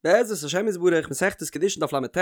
בעזרת השם יתברך מסכת קידושין דף לט,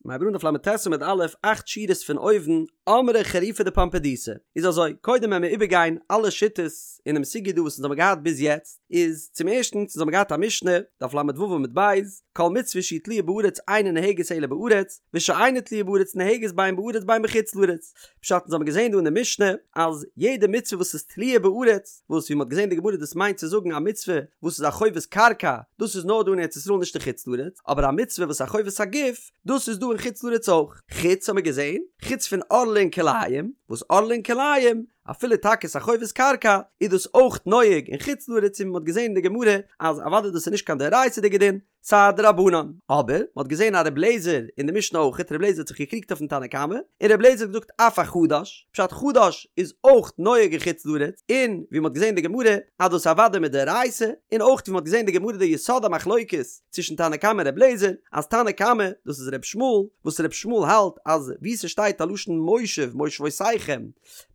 מ'הייבט אן דף לט עמוד א', אכט שורות פון אויבן, אמרי חריפי דפומבדיתא, איז אזוי, קודם וועלן מיר איבערגיין אלע שיטות אינעם סוגיא דא וואס אונז האבן געהאט ביז יעצט, איז צום ערשטנס אונז האבן געהאט א משנה, דף לו עמוד ב', כל מצוה שהיא תלויה בארץ אינה נוהגת אלא בארץ, ושאינה תלויה בארץ נוהגת בין בארץ בין בחוץ לארץ. פשט אונז האבן געזען דא אין די משנה אז יעדע מצוה וואס איז תלויה בארץ, וואס ווי מ'האט געזען אין די גמרא דאס מיינט צו זאגן א מצוה וואס איז א חובת קרקע, דאס איז נאר דא אין ארץ ישראל נישט אין חוץ לארץ, אבער א מצוה וואס איז א חובת הגוף, דאס איז דא אין חוץ לארץ אויך. חוץ האבן מיר געזען, חוץ פון ערלה און כלאים, וואס ערלה און כלאים, אפילו טאקע ס'איז א חובת קרקע, איז דאס אויך נוהג אין חוץ לארץ און ווי מ'האט געזען אין די גמרא אז אוודאי דאס איז נישט קיין דאורייתא'דיגע דין, ס'איז א דרבנן. אבער, מ'האט געזען א ר' לעזער אין די משנה אויכעט, ר' לעזער האט זיך געקריגט אויפן תנא קמא, און ר' לעזער האט געזאגט אף החדש, פשט חדש איז אויך נוהג אין חוץ לארץ, און ווי מ'האט געזען אין די גמרא אז דאס אוודאי מדאורייתא, און אויך ווי מ'האט געזען אין די גמרא די יסוד המחלוקת צווישן תנא קמא און ר' לעזער, אז תנא קמא, דאס איז ר' ישמעאל, וואס ר' ישמעאל האלט אז וואו ס'שטייט א לשון מושב מושבותיכם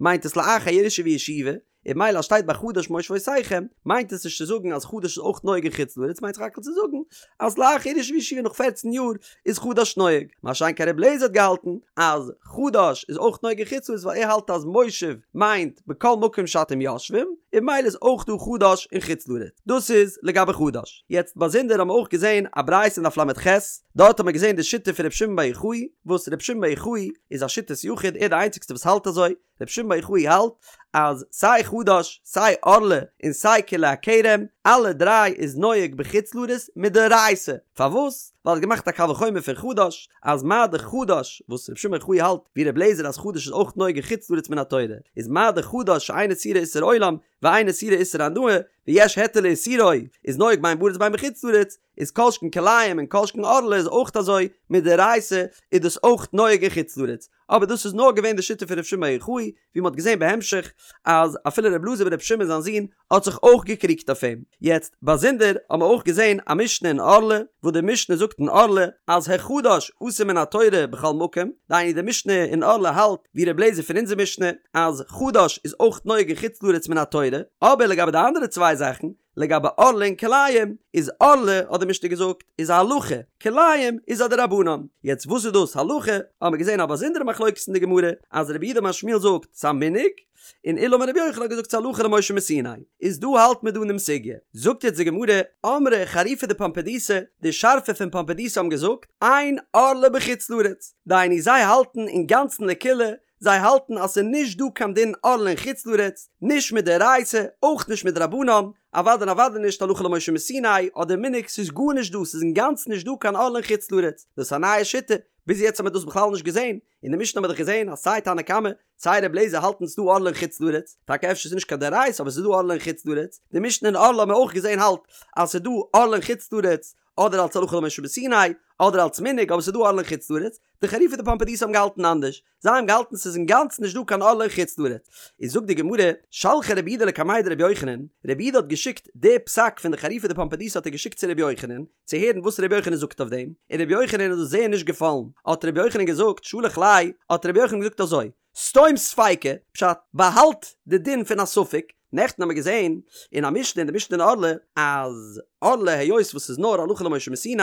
מיינט עס לאחר ירושה וישיבה, און ממילא אז שטייט ביי חדש מושבותיכם, מיינט עס נישט צו זאגן אז חדש איז אויך נוהג אין חוץ לארץ, מיינט סך הכל צו זאגן אז לאחר ירושה וישיבה נאך פערצן יאר איז חדש נוהג, מה שאין כן רבי אליעזר האט געהאלטן אז חדש איז אויך נוהג אין חוץ לארץ ווייל ער האלט אז מושב מיינט בכל מקום שאתם יושבים, און ממילא איז אויך דא חדש אין חוץ לארץ. דאס איז לגבי חדש. יעצט באזונדער האבן מיר אויך געזען א ברייתא אין דף ל"ח, דארט האבן מיר געזען די שיטה פון רבי שמעון בר יוחאי, וואס רבי שמעון בר יוחאי איז א שיטת יחיד, ער איז די איינציגסטע וואס האלט אזוי, רבי שמעון בר יוחאי האלט אז סיי חדש סיי ערלה און סיי כלאי הכרם אלע דריי איז נוהג בחוץ לארץ מדאורייתא, פארוואס? ווייל ער האט געמאכט א קל וחומר פון חדש אז מה דאך חדש וואס רבי שמעון בר יוחאי האלט ווי רבי אליעזר אז חדש איז אויך נוהג אין חוץ לארץ מן התורה איז מה דאך חדש שאין איסורו איסור עולם ואין איסורו איסור הנאה ויש היתר לאיסורו איז נוהג בין בארץ בין בחוץ לארץ איז כל שכן כלאים און כל שכן ערלה איז אויך אזוי מדאורייתא איז דאס אויך נוהג אין חוץ לארץ אבער דאס איז נאר געווען די שיטה פון ר' שמעון בר יוחאי, ווי מ'האט געזען בהמשך אז אפילו ר' אלעזר בר' שמעון זיין זון האט זיך אויך געקריגט אויף אים. יעצט, באזונדער האבן מיר אויך געזען א משנה אין ערלה, וואס די משנה זאגט אין ערלה אז החדש אסור מן התורה בכל מקום, דהיינו די משנה אין ערלה האלט ווי ר' אליעזר פון אונזער משנה אז חדש איז אויך נוהג אין חוץ לארץ מן התורה, אבער לגבי די אנדערע צוויי זאכן, לגבי ערלה און כלאים, איז ערלה האט די משנה געזאגט איז א הלכה, כלאים איז א דרבנן. יעצט וואס איז דאס הלכה, האבן מיר געזען א באזונדערע מחלוקת אין די גמרא, אז רב יהודה אמר שמואל זאגט ס'א מנהג, און עולא אמר רבי יוחנן האט געזאגט ס'הלכה למשה מסיני. איז דא האלט מען דא אינעם סוגיא. זאגט יעצט די גמרא, אמרי חריפי דפומבדיתא, די שארפע פון פומבדיתא האבן געזאגט, אין ערלה בחוץ לארץ, דהיינו זיי האלטן אינגאנצן לקולא, זיי האלטן אז ס'איז נישט דא קיין דין ערלה אין חוץ לארץ, נישט מדאורייתא, אויך נישט מדרבנן, אוודאי און אוודאי נישט הלכה למשה מסיני אדער מנהג, ס'איז גארנישט דא, ס'איז אינגאנצן נישט דא קיין ערלה אין חוץ לארץ, דאס איז א נייע שיטה, ביז יעצט האט מען דאס בכלל נישט געזען, אין די משנה האט מען דאך געזען אז סיי תנא קמא, סיי ר' אליעזר האלטן ס'איז דא ערלה אין חוץ לארץ, טאקע אפשר ס'איז נישט קיין דאורייתא אבער ס'איז דא ערלה אין חוץ לארץ, די משנה אין ערלה האט מען אויך געזען האלט אז ס'איז דא ערלה אין חוץ לארץ, אדער אלס הלכה למשה מסיני, אדער אלס מנהג, אבער ס'איז דא ערלה אין חוץ לארץ, די חריפי דפומבדיתא האבן געהאלטן אנדערש, זיי האבן געהאלטן ס'איז אינגאנצן נישט דא קיין ערלה אין חוץ לארץ. איז זאגט די גמרא, שלחה רב יהודה לקמיה דרבי יוחנן, רב יהודה האט געשיקט די פסק פון די חריפי דפומבדיתא האט ער געשיקט צו רבי יוחנן, צו הערן וואס רבי יוחנן זאגט אויף דעם, און רבי יוחנן איז דאס זייער נישט געפאלן, האט רבי יוחנן געזאגט, שלח ליה, האט רבי יוחנן געזאגט אזוי, סתום ספיקא, פשט, באהאלט די דין פון א ספק, נעכטן האמיר געזען אין א משנה אין די משנה אין ערלה אז ערלה היות וואס ס'איז נאר הלכה למשה מסיני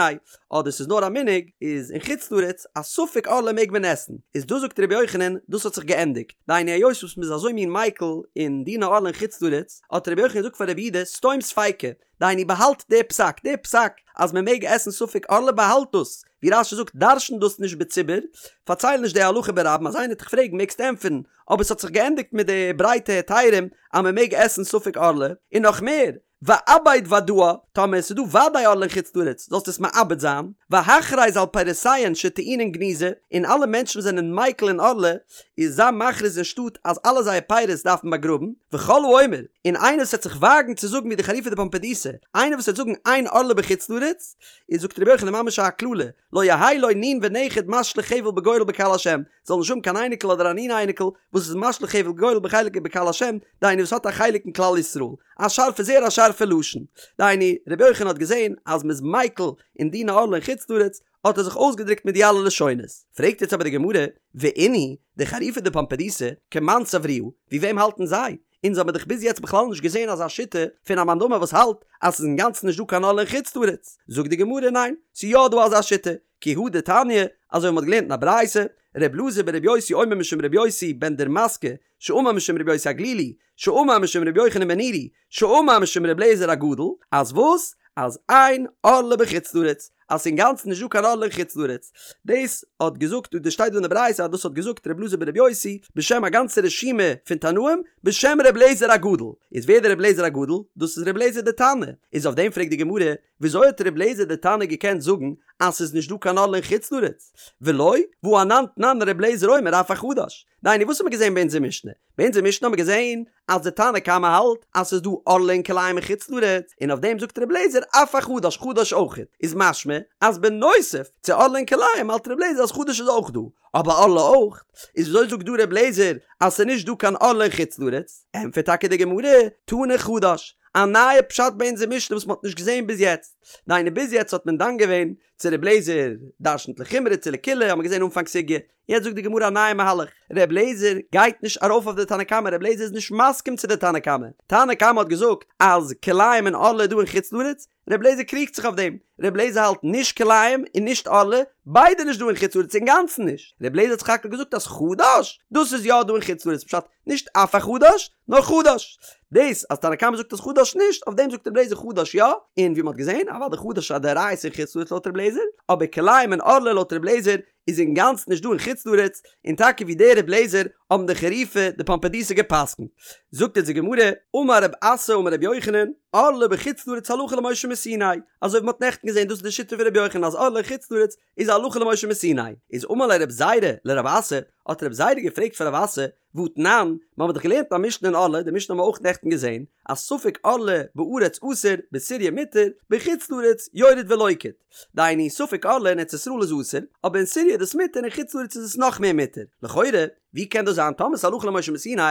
אדער ס'איז נאר א מנהג איז אין חוץ לארץ א ספק ערלה מעג מען עסן איז דא זאגט רבי יוחנן דאס האט זיך געענדיגט דהיינו היות וואס מ'איז אזוי מין מיקל אין דיני ערלה אין חוץ לארץ האט רבי יוחנן געזאגט פאר רב יהודה סתום ספיקא דהיינו באהאלט די פסק, די פסק אז מען מעג עסן ספק ערלה באהאלט דאס, ווי רש"י זאגט דרש'ן דאס נישט בציבור, פארצייל נישט די הלכה ברבים אז איינער וועט דיך פרעגן מעגסטו ענטפערן, אבער ס'האט זיך געענדיגט מיט די ברייטע היתרים אז מען מעג עסן ספק ערלה, און נאך מער, ואבד ודאה, טאמער עס איז דא וודאי ערלה אין חוץ לארץ זאלסטו עס מאבד זיין, והכרז על פירותיהן שטעונין גניזה, און אלע מענטשן וואס זענען מיקל אין ערלה, איז זיי מכריז אין שטאט אז אלע זייער פירות דארף מען באגראבן, וכל האומר, און איינער וואס וועט זיך וואגן צו זאגן ווי די חריפי דפומבדיתא, איינער וואס וועט זאגן אין ערלה בחוץ לארץ, איז זאגט רבי יוחנן ממש א קללה, לא יהא לו נין ונכד משליך חבל בגורל בקהל השם, זאל נישט האבן קיין אייניקל אדער א נין אייניקל וואס איז משליך חבל גורל בחלק בקהל השם, דהיינו וואס האט א חלק אין כלל ישראל. א שארפע זייער א שארפע לשון. דהיינו, רבי יוחנן האט געזען אז מ'איז מיקל אין דיני ערלה אין חוץ לארץ, האט ער זיך אויסגעדרוקט מיט די אלע לשונות. פרעגט יעצט אבער די גמרא, ואינהו, די חריפי דפומבדיתא, כמאן סברוה, ווי וועם האלטן זיי? אונז האבן דאך ביז יעצט בכלל נישט געזען אזא שיטה פון א מאן דאמר וואס האלט אז ס'איז אינגאנצן נישט דא קיין ערלה אין חוץ לארץ, זאגט די גמרא ניין, ס'איז יא דא אזא שיטה, כי הא דתניא, אזוי ווי מ'האט געלערנט אין א ברייתא, ר' אלעזר בר' יוסי אומר משום ר' יוסי בן דורמסקא, שאמר משום ר' יוסי הגלילי, שאמר משום ר' יוחנן בן נורי, שאמר משום ר' אליעזר הגדול, אז וואס? אז אין ערלה בחוץ לארץ, אז ס'איז אינגאנצן נישט דא קיין ערלה אין חוץ לארץ. דאס האט געזאגט, דאס שטייט דא אין די ברייתא אז דאס האט געזאגט ר' אלעזר בר' יוסי בשם א גאנצע רשימה פון תנאים, בשם ר' אליעזר הגדול. איז ווער דער ר' אליעזר הגדול? דאס איז ר' אליעזר דער תנא. איז אויף דעם פרעגט די גמרא, וויאזוי האט ר' אליעזר דער תנא געקענט זאגן אז ס'איז נישט דא קיין ערלה אין חוץ לארץ? ולא, והא אנן תנן ר' אליעזר אומר אף החדש. דהיינו וואס האט מען געזען ביי אונזער משנה? ביי אונזער משנה האט מען געזען אז די תנא קמא האלט אז ס'איז דא ערלה און כלאים אין חוץ לארץ, און אויף דעם זאגט ר' אליעזר אף החדש, חדש אויכעט, איז משמע אז בנוסף צו ערלה און כלאים האלט ר' אליעזר אז חדש איז אויך דא, אבער ערלה אויך, איז וויאזוי זאגט דא ר' אליעזר אז ס'איז נישט דא קיין ערלה אין חוץ לארץ? ענטפערט טאקע די גמרא, תני חדש, א נייע פשט ביי אונזער משנה וואס מ'האט נישט געזען ביז יעצט, דהיינו ביז יעצט האט מען דן געווען צו ר' אליעזר דרשנ'ט לחומרא צו לקולא האט מען געזען אנפאנג סוגיא, יעצט זאגט די גמרא א נייע מהלך, ר' אליעזר גייט נישט ארויף אויף די תנא קמא, ר' אליעזר איז נישט מסכים צו די תנא קמא, תנא קמא האט געזאגט אז כלאים און ערלה איז דא אין חוץ לארץ, ר' אליעזר קריגט זיך אויף דעם, ר' אליעזר האלט נישט כלאים און נישט ערלה, ביידע נישט דא אין חוץ לארץ אינגאנצן נישט, ר' אליעזר האט סך הכל געזאגט אז חדש, דאס איז יא דא אין חוץ לארץ, פשט, נישט אף החדש, נאר חדש. דאס אז תנא קמא זאגט אז חדש נישט, אויף דעם זאגט ר' אליעזר חדש יא, און ווי מ'האט געזען, אוודאי חדש איז א דאורייתא אין חוץ לארץ לויט ר' אליעזר, אבער כלאים און ערלה לויט ר' אליעזר איז אינגאנצן נישט דא אין חוץ לארץ, און טאקע ווי דער ר' אליעזר האבן די חריפי דפומבדיתא גע'פסק'נט. זאגט אונז די גמרא, אמר רב אסי אמר רבי יוחנן, ערלה בחוץ לארץ הלכה למשה מסיני, אזוי ווי מ'האט נעכטן געזען דאס איז די שיטה פון רבי יוחנן אז ערלה אין חוץ לארץ איז הלכה למשה מסיני, איז אמר ליה רב זירא לרב אסי, האט רב זירא געפרעגט פון רב אסי, והתנן, מ'האמיר דאך געלערנט א משנה אין ערלה, די משנה האבן מיר אויך נעכטן געזען, אז ספק ערלה בארץ אסור, בסוריא מותר, בחוץ לארץ יורד ולוקט. דהיינו, ספק ערלה אין ארץ ישראל איז אסור, אבער אין סוריא איז דאס מותר אין חוץ לארץ איז עס נאך מער מותר. לכאורה, ווי קען דאס זיין טאמער ס'איז הלכה למשה מסיני,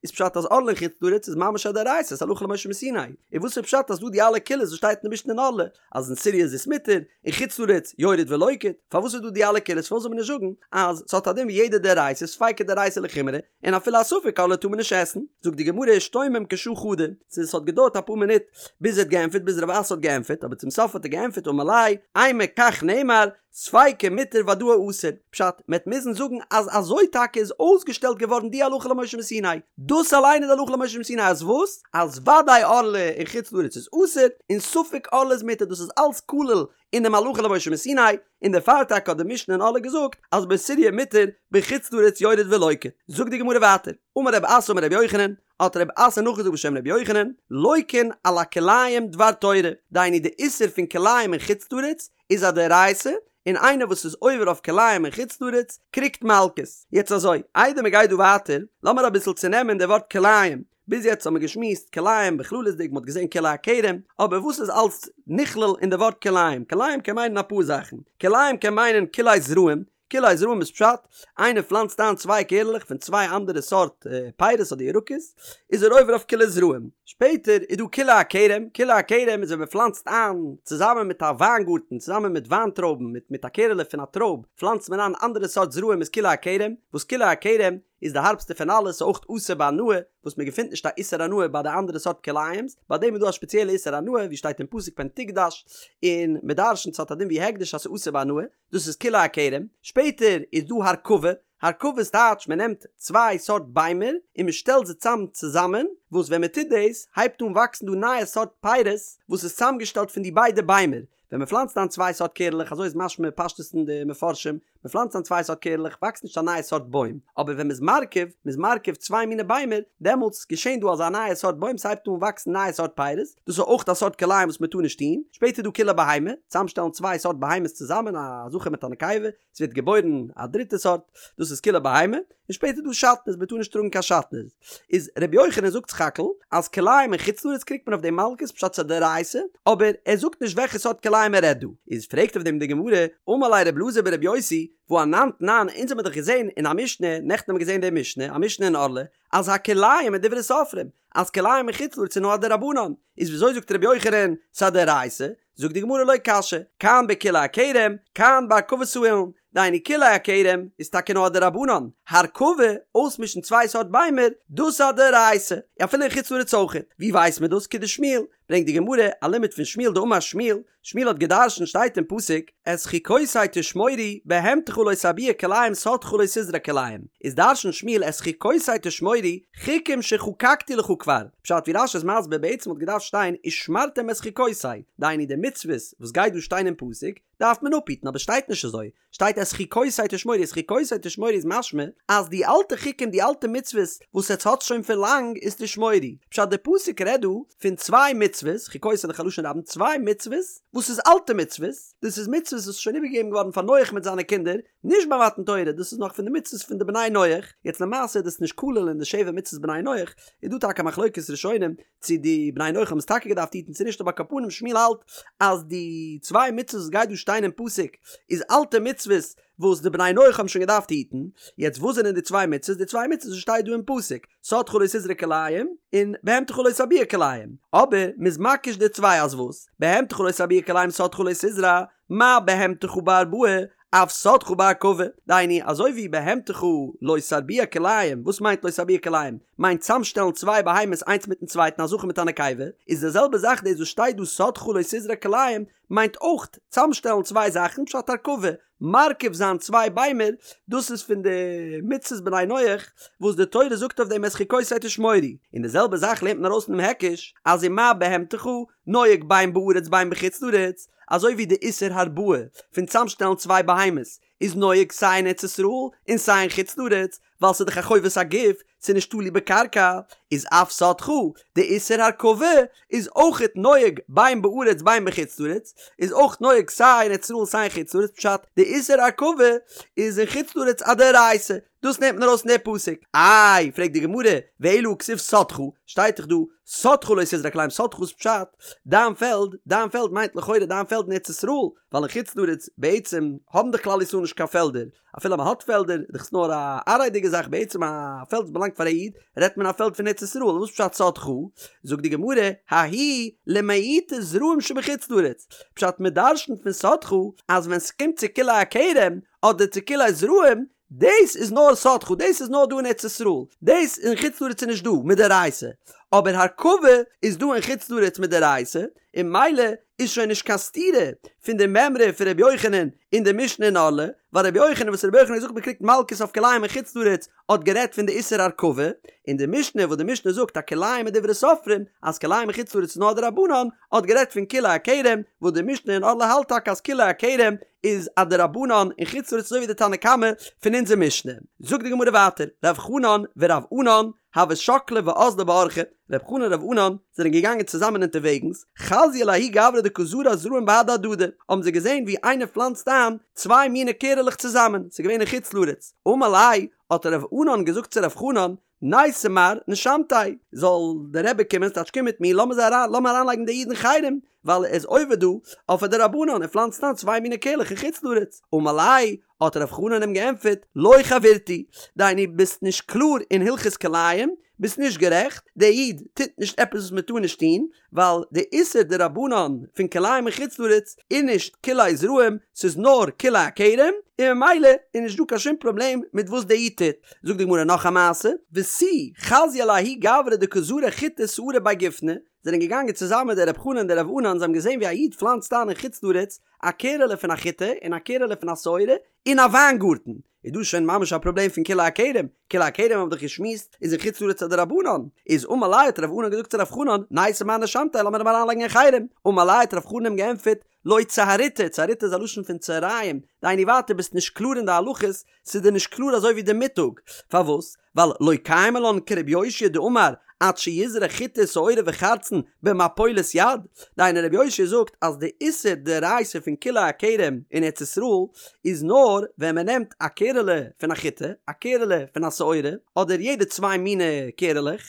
איז פשט אז ערלה אין חוץ לארץ איז ממש א דאורייתא, ס'איז הלכה למשה מסיני. און וואס איז פשט אז דא די אלע קולות וואס שטייט אין די משנה אין ערלה, אז אין סוריא איז עס מותר, אין חוץ לארץ יורד ולוקט, פארוואס איז דא די אלע קולות פארוואס זאל מען נישט זאגן אז ס'האט א דין ווי יעדע דאורייתא ספיקא דאורייתא לחומרא און אפילו א ספק ערלה טאר מען נישט עסן, זאגט די גמרא אשתומם כשעה חדא, ס'איז ס'האט געדויערט אפאר מינוט ביז ער האט געענטפערט ביז רב אסי האט געענטפערט אבער צום סוף האט ער געענטפערט אמר ליה אימא כך נאמר ספיקא מותר ודאי אסור, פשט, מ'עט מוזן זאגן אז אזוי טאקע איז אויסגעשטעלט געווארן די הלכה למשה מסיני, דאס אליין איז די הלכה למשה מסיני אז וואס? אז ודאי ערלה אין חוץ לארץ איז אסור, און ספק ערלה איז מותר, דאס איז אלס כולל אינעם הלכה למשה מסיני, און דערפאר טאקע האט די משנה אין ערלה געזאגט אז בסוריא מותר, בחוץ לארץ יורד ולוקט. זאגט די גמרא ווייטער, אמר רב אסי אמר רבי יוחנן, האט רב אסי נאכגעזאגט בשם רבי יוחנן, לוקין על הכלאים דבר תורה, דהיינו די איסור פון כלאים אין חוץ לארץ איז א דאורייתא, און איינער וואס איז עובר אויף כלאים אין חוץ לארץ קריגט מלקות. יעצט אזוי, איידער מען גייט דא ווייטער, לאמיר אביסל צונעמען די ווארט כלאים. ביז יעצט האבן מיר געשמועסט כלאים בכללות'דיג, מען האט געזען כלאי הכרם, אבער וואס איז אלס נכלל אין די ווארט כלאים? כלאים קען מיינען אפאר זאכן. כלאים קען מיינען כלאי זרעים, כלאי זרעים איז פשט, איינער פלאנצט איין צוויי קערלעך פון צוויי אנדערע סארט פירות אדער ירקות, איז ער עובר אויף כלאי זרעים. שפעטער איז דא כלאי הכרם, כלאי הכרם איז ווען מען פלאנצט איין צוזאמען מיט א וויינגארטן, צוזאמען מיט וויינטרויבן, מיט מיט א קערעלע פון א טרויב, פלאנצט מען איין אנדערע סארט זרעים איז כלאי הכרם, וואס כלאי הכרם איז די הארבסטע פון אלעס, ס'איז אויך אסור בהנאה, וואס מען געפינט נישט א איסור הנאה ביי די אנדערע סארט כלאים'ס, ביי דעם איז דא א שפעציעלע איסור הנאה, ווי שטייט אין פסוק פן תקדש, און מען דרש'נט ס'האט א דין ווי הקדש אז ס'איז אסור בהנאה. דאס איז כלאי הכרם, שפעטער איז דא הרכבה, הרכבה איז טייטש מען נעמט צוויי סארט ביימער און מען שטעלט זיי צאם צוזאמען, וואס ווען מען טוט דאס הייבט אן וואקסן דא נייע סארט פירות וואס איז צאמגעשטעלט פון די ביידע ביימער, ווען מען פלאנצט איין צוויי סארט קערלעך אזוי איז משמע פשטות אין די מפרשים, מען פלאנצט איין צוויי סארט קערלעך וואקסט נישט א נייע סארט בוים, אבער ווען מען איז מרכיב, מען איז מרכיב צוויי מיני ביימער, דעמאלטס געשען דא אזא נייע סארט בוים ס'הייבט אן וואקסן נייע סארט פירות, דאס איז אויך א סארט כלאים וואס מען טאר נישט טון, שפעטער איז דא כלאי בהמה, צוזאמשטעלן צוויי סארט בהמות צוזאמען א זכר מיט א נקבה, ס'ווערט געבוירן א דריטע סארט, דאס איז כלאי בהמה, און שפעטער איז דא שעטנז, מען טאר נישט טראגן קיין שעטנז. איז ר' יוחנן זאגט סך הכל אז כלאים אין חוץ לארץ קריגט מען אויף דעם מלקות פשט ס'איז א דאורייתא, אבער ער זאגט נישט וועלכע סארט כלאים ער רעדט דא. איז פרעגט אויף דעם די גמרא, אמר ליה ר' אלעזר בר' יוסי, והא אנן תנן, אונז האמיר דאך געזען אין א משנה, נעכטן האמיר געזען די משנה, א משנה אין ערלה, אז הכלאים מדברי סופרים, אז כלאים אין חוץ לארץ איז נאר א דרבנן, איז וויאזוי זאגט רבי יוחנן ס'איז א דאורייתא? זאגט די גמרא לא קשיא, כאן בכלאי הכרם, כאן בהרכבת האילן, דהיינו כלאי הכרם איז טאקע נאר א דרבנן, הרכבה, אויסמישן צוויי סארט ביימער, דאס איז א דאורייתא, אפילו אין חוץ לארץ אויכעט, ווי ווייסט מען דאס? כדשמואל, ברענגט די גמרא א לימוד פון שמואל דאמר שמואל, שמואל האט גע'דרש'נט שטייט אין פסוק, את חוקותי תשמורו, בהמתך לא תרביע כלאים שדך לא תזרע כלאים, איז דרש'נט שמואל את חוקותי תשמורו, חוקים שחקקתי לך כבר, פשט ווי רש"י איז מסביר בעצם האט געדארפט שטיין ושמרתם את חוקותי, דהיינו די מצוות וואס גייט דא שטיין אין פסוק דארף מען אפהיטן אבער שטייט נישט אזוי, שטייט את חוקותי תשמורו את חוקותי תשמורו איז משמע אז די אלטע חוקים די אלטע מצוות וואס עטס האטס שוין פון לאנג איז תשמורו, פשט די פסוק רעדט דא פון צוויי מצוות, חוקותי איז דאך א לשון רבים, צוויי מצוות וואס איז אלטע מצוות, דאס איז מצוות וואס איז שוין איבערגעגעבן געווארן פאר נח מיט זיינע קינדער, נישט ביי מתן תורה, דאס איז נאך פון די מצוות פון די בני נח, יעצט למעשה איז דאס נישט כולל אין די שבע מצוות בני נח, איז דא טאקע א מחלוקת ראשונים צו די בני נח האבן עס טאקע געדארפט היטן צו נישט אבער על כל פנים שמואל האלט אז די צוויי מצוות וואס גייט דא שטיין אין פסוק איז אלטע מצוות וואס די בני נח האבן שוין געדארפט היטן, יעצט וואס זענען די צוויי מצוות? די צוויי מצוות וואס שטייט דא אין פסוק, שדך לא תזרע כלאים און בהמתך לא תרביע כלאים, אבער מ'איז מקיש די צוויי אז וואס? בהמתך לא תרביע כלאים שדך לא תזרע, מה בהמתך בהרבעה אף שדך בהרכבה, דהיינו אזוי ווי בהמתך לא תרביע כלאים, וואס מיינט לא תרביע כלאים? מיינט צאמשטעלן צוויי בהמות איינס מיטן צווייטן א זכר מיט א נקבה, איז די זעלבע זאך דאס וואס שטייט דא שדך לא תזרע כלאים מיינט אויך צאמשטעלן צוויי זאכן פשט הרכבה, מרכיב זיין צוויי ביימער, דאס איז פון די מצוות בני נח וואס די תורה זאגט אויף דעם את חוקותי תשמורו, און די זעלבע זאך לערנט מען ארויס פונעם היקש אז ומה בהמתך נוהג בין בארץ בין בחוץ לארץ, אזוי ווי די איסור הרבעה פון צאמשטעלן צוויי בהמות איז נוהג סיי אין ארץ ישראל און סיי אין חוץ לארץ, ווייל ס'איז דאך א חובת הגוף, ס'איז נישט תלוי בקרקע, איז אף שדך, די איסור הרכבה איז אויכעט נוהג בין בארץ בין בחוץ לארץ, איז אויך נוהג סיי אין ארץ ישראל און סיי אין חוץ לארץ, פשט, די איסור הרכבה איז אין חוץ לארץ א דאורייתא, דאס נעמט מען ארויס פון די פסוק. איי, פרעגט די גמרא, ואלא הכתיב שדך, שטייט דאך דא, שדך לא תזרע כלאים, שדך איז פשט, דיין פעלד, דיין פעלד מיינט לכאורה דיין פעלד אין ארץ ישראל, ווייל אין חוץ לארץ בעצם האבן דאך כלל ישראל נישט קיין פעלדער, אפילו מען האט פעלדער, איז דאך עס נאר א עראי'דיגע זאך, בעצם א פעלד וואס באלאנגט פאר א איד, רעדט מען א פעלד פון ארץ ישראל, וואס פשט שדך? זאגט די גמרא, ההוא למעוטי זרעים שבחוץ לארץ, פשט מען דרשנ'ט פון שדך אז ווען ס'קומט צו כלאי הכרם אדער צו כלאי זרעים, דאס איז נאר שדך, דאס איז נאר דא אין ארץ ישראל, דאס אין חוץ לארץ איז נישט דא מדאורייתא, אבער הרכבה איז דא אין חוץ לארץ מדאורייתא, און ממילא איז שוין נישט קיין סתירה פון די מימרא פון רבי יוחנן אין די משנה אין ערלה, ווייל רבי יוחנן וואס רבי יוחנן האט געזאגט מען קריגט מלקות אויף כלאים אין חוץ לארץ האט גערעדט פון די איסור הרכבה, און די משנה וואס די משנה זאגט אז כלאים מדברי סופרים אז כלאים אין חוץ לארץ איז נאר דרבנן האט גערעדט פון כלאי הכרם, וואס די משנה אין ערלה האלט טאקע אז כלאי הכרם איז א דרבנן אין חוץ לארץ אזוי ווי די תנא קמא פון אונזער משנה. זאגט די גמרא ווייטער, רב חנן ורב ענן הוו שקלי ואזלי באורחא, רב חנן און רב ענן זענען געגאנגען צוזאמען אונטערוועגנס, חזיוהו לההוא גברא דקא זרע זרעים בהדי הדדי, האבן זיי געזען ווי איינער פלאנצט איין צוויי מיני קערעלעך צוזאמען, ס'איז געווען אין חוץ לארץ, אמר ליה, האט רב ענן געזאגט צו רב חנן, ניתי מר נשמתיה, זאל דער רבי קומען, ס'טייטש קום מיט מיר, לאמיר זיי אריין, לאמיר אריינלייגן די איד אין חרם, ווייל ער איז עובר דא אויף א דרבנן, ער פלאנצט איין צוויי מיני קערלעך אין חוץ לארץ, אמר ליה, האט רב חנן אים געענטפערט, לא חברתי, דהיינו ביסט נישט קלאר אין הלכות כלאים, ביסט נישט גערעכט, דער איד טוט נישט עפעס וואס מען טאר נישט טון, ווייל די איסור דרבנן פון כלאים אין חוץ לארץ איז נישט כלאי זרעים, ס'איז נאר כלאי הכרם, און ממילא איז נישט דא קיין שום פראבלעם מיט וואס דער איד טוט. זאגט די גמרא נאך א מעשה, ותו חזיוהו לההוא גברא דקא זרע חיטי ושערי בי גופנא, זענען געגאנגען צוזאמען דער רב חנן און דער רב ענן, זיי האבן געזען ווי א איד פלאנצט איין אין חוץ לארץ א קערעלע פון א חיטה און א קערעלע פון א שעורה אין א וויינגארטן, איז דא שוין ממש א פראבלעם פון כלאי הכרם, כלאי הכרם האבן דאך געשמועסט איז אין חוץ לארץ א דרבנן, איז אמר ליה האט רב ענן געזאגט צו רב חנן, ניתי מר נשמתיה לאמיר אים אריינלייגן אין חרם, אמר ליה האט רב חנן אים געענטפערט, לא צהריתא, צהריתא איז א לשון פון צהריים, דהיינו ווייטער ביסט נישט קלאר אין די הלכות, ס'איז דיר נישט קלאר אזוי ווי די מיטאג, פארוואס? ווייל לא קיימא לן כרבי יאשיה דאמר עד שיזרע חיטה שעורה וחרצן במפולת יד, דהיינו רבי יאשיה זאגט אז די איסור דאורייתא פון כלאי הכרם אין ארץ ישראל איז נאר ווען מען נעמט א קערעלע פון א חיטה, א קערעלע פון א שעורה, אדער יעדע צוויי מיני קערעלעך,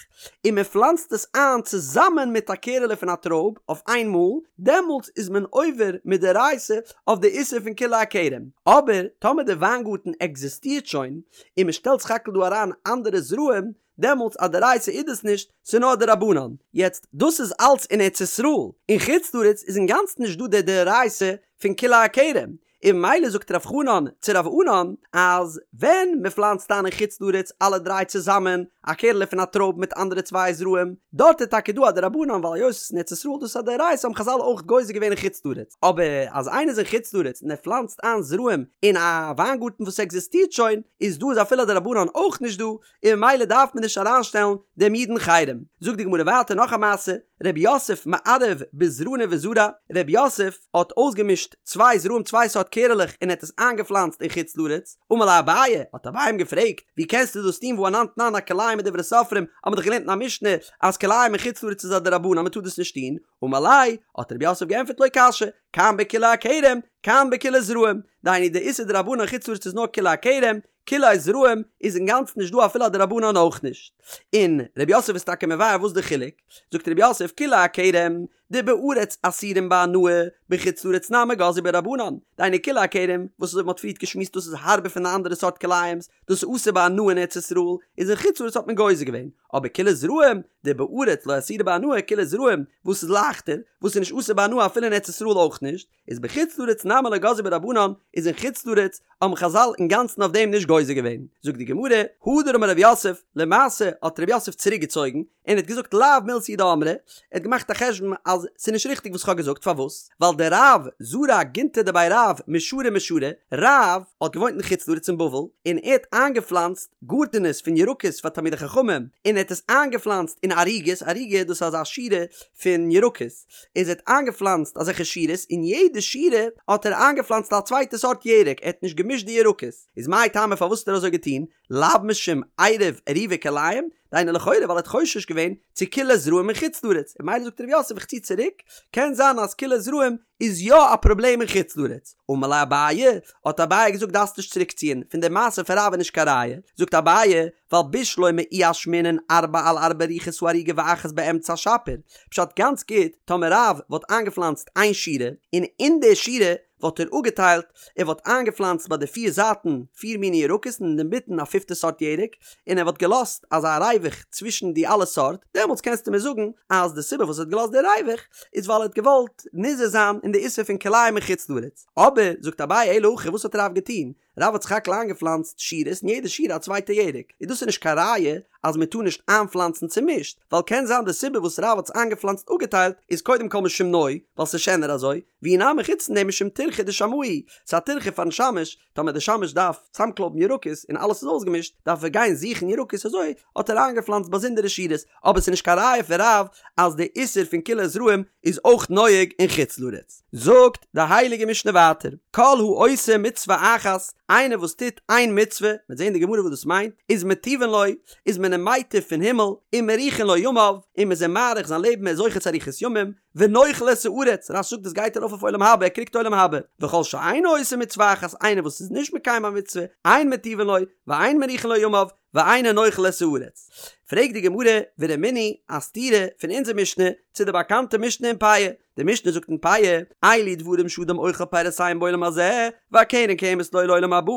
און מען פלאנצט עס איין צוזאמען מיט א קערעלע פון א טרויב אויף איין מאל, דעמאלטס איז מען עובר מדאורייתא אויף די איסור פון כלאי הכרם. אבער טאמער די וויינגארטן עקזיסטירט שוין, און מען שטעלט סך הכל דא אריין אנדערע זרעים, דעמאלטס א דאורייתא איז דאס נישט, ס'איז נאר א דרבנן. יעצט, דאס איז אלץ אין ארץ ישראל, אין חוץ לארץ איז אינגאנצן נישט דא די דאורייתא פון כלאי הכרם, און ממילא זאגט רב חנן צו רב ענן אז ווען מען פלאנצט איין אין חוץ לארץ אלע דריי צוזאמען א קערעלע פון א טרויב מיט אנדערע צוויי זרעים, דארט איז טאקע דא א דרבנן ווייל היות עס איז אין ארץ ישראל דאס איז א דאורייתא האבן חזל אויך גוזר געווען אין חוץ לארץ, אבער אז איינער איז אין חוץ לארץ און ער פלאנצט איין זרעים אין א וויינגארטן וואס עקזיסטירט שוין, איז דא איז אפילו א דרבנן אויך נישט דא, און ממילא דארף מען נישט אריינשטעלן דעם איד אין חרם. זאגט די גמרא ווייטער נאך א מעשה, רב יוסף מערב בזרני וזרע, רב יוסף האט אויסגעמישט צוויי זרעים צוויי סארט קערעלעך און ער האט עס איינגעפלאנצט אין חוץ לארץ, אמר ליה אביי, האט אביי אים געפרעגט, ווי קענסטו דאס טון והא אנן תנן הכלאים מדברי סופרים, האט מען דאך געלערנט אין א משנה אז כלאים אין חוץ לארץ איז א דרבנן מען טאר דאס נישט טון, אמר ליה, האט רב יוסף געענטפערט לא קשיא, כאן בכלאי הכרם, כאן בכלאי זרעים, דהיינו די איסור דרבנן אין חוץ לארץ איז נאר כלאי הכרם, כלאי זרעים איז אינגאנצן נישט דא אפילו א דרבנן אויך נישט. און ר' יוסף איז טאקע מבאר וואס די חילוק, זאגט ר' יוסף כלאי הכרם דבארץ אסורים בהנאה בחוץ לארץ נמי גזרו בהו רבנן, דהיינו כלאי הכרם וואס אזוי ווי מ'האט פריערט געשמועסט דאס איז הארבער פון די אנדערע סארט כלאים'ס, דאס איז אסור בהנאה אין ארץ ישראל, איז אין חוץ לארץ האט מען גוזר געווען, אבער כלאי זרעים דבארץ לא אסירי בהנאה כלאי זרעים וואס איז לייכטער, וואס איז נישט אסור בהנאה אפילו אין ארץ ישראל אויך נישט, איז בחוץ לארץ נמי לא גזרו בהו רבנן, איז אין חוץ לארץ האבן חזל אינגאנצן אויף דעם נישט גוזר געווען. זאגט די גמרא, הדר אמר רב יוסף, למעשה האט רב יוסף צוריק געצויגן, און האט געזאגט לאו מילתא היא דאמרי, ער האט געמאכט א חשבון אז ס'איז נישט ריכטיג וואס כ'האב געזאגט, פארוואס? ווייל דרב זרע גינתי דבי רב משורה משורה, רב האט געוואוינט אין חוץ לארץ אין בבל, און ער האט איינגעפלאנצט גארטענעס פון ירקות פאר תלמידי חכמים, און ער האט עס איינגעפלאנצט אין ערוגות, ערוגה דאס איז אזא שורה פון ירקות, איז ער האט איינגעפלאנצט אזעלכע שורות, אין יעדע שורה האט ער איינגעפלאנצט א צווייטע סארט ירק, ער האט נישט געמישט די ירקות, איז מאי טעמא פארוואס האט ער אזוי געטון, לאו משום עירוב עירובי כלאים, דהיינו לכאורה ווייל ער האט חושש געווען צו כלאי זרעים אין חוץ לארץ, און ממילא זאגט ר' יוסף איך צי צוריק, קען זיין אז כלאי זרעים איז יא א פראבלעם אין חוץ לארץ. אמר ליה אביי, האט אביי געזאגט דארפסט נישט צוריק ציען, פון די מעשה פון רב איז נישט קיין ראיה, זאגט אביי, ווייל בשלמא אי אשמעינן ארבע על ארבע רוחות הערוגה ואחת באמצע שפיר, פשט גאנץ גוט, טאמער רב וואלט איינגעפלאנצט איין שורה, און אין די שורה וואלט ער אפגעטיילט, ער וואלט איינגעפלאנצט ביי די פיר זייטן פיר מיני ירקות און אינמיטן א פיפטע סארט ירק, און ער וואלט געלאזט אזא ריווח צווישן די אלע סארט, דעמאלטס קענסטו מיר זאגן אז די סיבה וואס ער האט געלאזט די ריווח איז ווייל ער האט געוואלט נזהר זיין אין די איסור פון כלאים אין חוץ לארץ. אבער, זאגט אביי אלא הכא וואס האט רב געטון? רב האט סך הכל איינגעפלאנצט שורות אין יעדע שורה א צווייטע ירק, איז דאס איז נישט קיין ראיה אז מען טאר נישט איינפלאנצן צומישט, ווייל קען זיין די סיבה וואס רב האט עס איינגעפלאנצט אפגעטיילט איז קודם כל משום נוי, ווייל ס'איז שענער אזוי, ואי נמי חוץ פון דעם משום טירחא דשמאי, ס'איז א טירחא פארן שמש, טאמער די שמש דארף צאמקלויבן ירקות און אלעס איז אויסגעמישט, דארף ער גיין זוכן ירקות אזוי האט ער איינגעפלאנצט באזונדערע שורות, אבער ס'איז נישט קיין ראיה פון רב אז די איסור פון כלאי זרעים איז אויך נוהג אין חוץ לארץ. זאגט די הייליגע משנה ווייטער, כל העושה מצוה אחת, איינער וואס טוט איין מצוה, מ'וועט זען אין די גמרא וואס דאס מיינט, איז מטיבין לו, איז מען אים מייטיב פון הימל, ומאריכין לו ימיו, און מ'איז אים מאריך זיין לעבן ער איז זוכה צו אריכות ימים, ונוחל את הארץ, רש"י זאגט דאס גייט ארויף אויף עולם הבא, ער קריגט עולם הבא, וכל שאינו עושה מצוה אחת, איינער וואס איז נישט מקיים א מצוה, אין מטיבין לו, ואין מאריכין לו ימיו, ואינו נוחל את הארץ. פרעגט די גמרא, ורמינהי, א סתירה פון אונזער משנה צו די באקאנטע משנה אין פאה, די משנה זאגט אין פאה, אלו דברים שאדם אוכל פירותיהם בעולם הזה, והקרן קיימת לו לעולם הבא,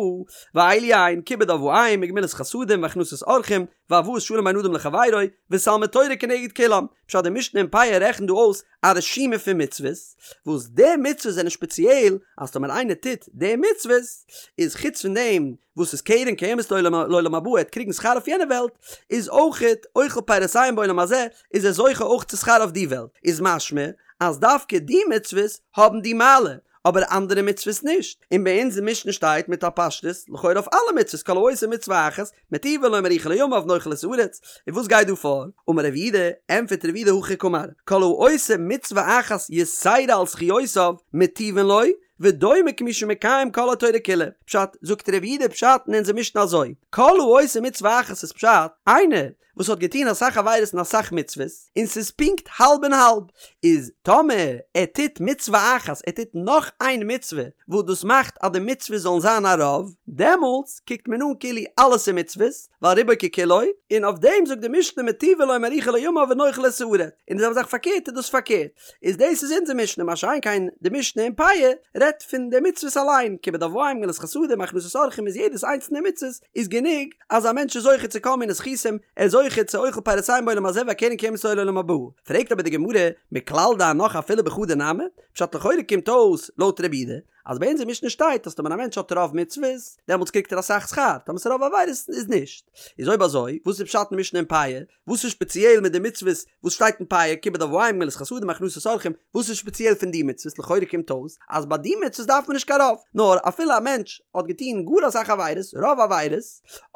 ואלו הן, כיבוד אב ואם, וגמילות חסדים, והכנסת אורחים, והבאת שלום בין אדם לחבירו, ותלמוד תורה כנגד כולם. פשט די משנה אין פאה רעכנט דא אויס א רשימה פון מצוות, וואס די מצוות זענען שפעציעל אז טאמער איינער טוט די מצוות, איז חוץ פון דעם וואס איז קרן קיימת לעולם הבא ער וועט קריגן שכר אויף יענע וועלט, איז אויכעט אוכל פירותיהם בעולם הזה, איז ער זוכה אויך צו שכר אויף די וועלט, איז משמע אז דווקא די מצוות האבן די מעלה, אבער אנדערע מצוות נישט, און ביי אונז אין משנה שטייט מיט א פשטות, לכאורה אויף אלע מצוות כל העושה מצוה אחת, מטיבין לו ומאריכין לו ימיו נוחל את הארץ, און וואס גייט דא פאר? אמר רב יהודה, ענטפערט רב יהודה הכי קאמר, כל העושה מצוה אחת יתירה על זכיותיו, מטיבין לו, ודומה כמי שמקיים כל התורה כולה. פשט, זאגט רב יהודה פשט אין אונזער משנה אזוי, כל העושה מצוה אחת איז פשט, איינער וואס האט געטון אסאך עבירות און אסאך מצוות, און ס'איז פונקט האלב און האלב, איז טאמער ער טוט מצוה אחת, ער טוט נאך איין מצוה, וואס דאס מאכט אז די מצוות זאלן זיין א רוב, דעמאלטס קוקט מען אן כאילו אלעס איז מצוות, ווייל רובו ככולו, און אויף דעם זאגט די משנה מטיבין לו ומאריכין לו ימיו ונוחל את הארץ, און די זעלבע זאך פארקערט איז דאס פארקערט, איז דאס איז אונזער משנה, מה שאין כן די משנה אין פאה רעדט. רעדט פון די מצוות אליין, כיבוד אב ואם, גמילות חסדים, הכנסת אורחים איז יעדעס איינס פון די מצוות איז גענוג אז א מענטש איז זוכה צו כל מיני זכותים, ער איז זוכה צו אוכל פירותיהם בעולם הזה והקרן קיימת לו לעולם הבא. פרעגט אבער די גמרא, מכלל דהנך אפילו בחדא נמי? פשט לכאורה קומט אויס לויט רבי יהודה אז ביי אונזער משנה שטייט אז טאמער א מענטש האט רוב מצוות דעמאלטס קריגט ער אסאך שכר, טאמער ס'איז רוב עבירות איז נישט. איז אויב אזוי וואס איז פשט אין משנה אין פאה? וואס איז שפעציעל מיט די מצוות וואס שטייט אין פאה, כיבוד אב ואם, גמילות חסדים, הכנסת אורחים, וואס איז שפעציעל פון די מצוות? לכאורה קומט אויס אז ביי די מצוות דארף מען נישט קיין רוב, נאר אפילו א מענטש האט געטון גאר אסאך עבירות, רוב עבירות,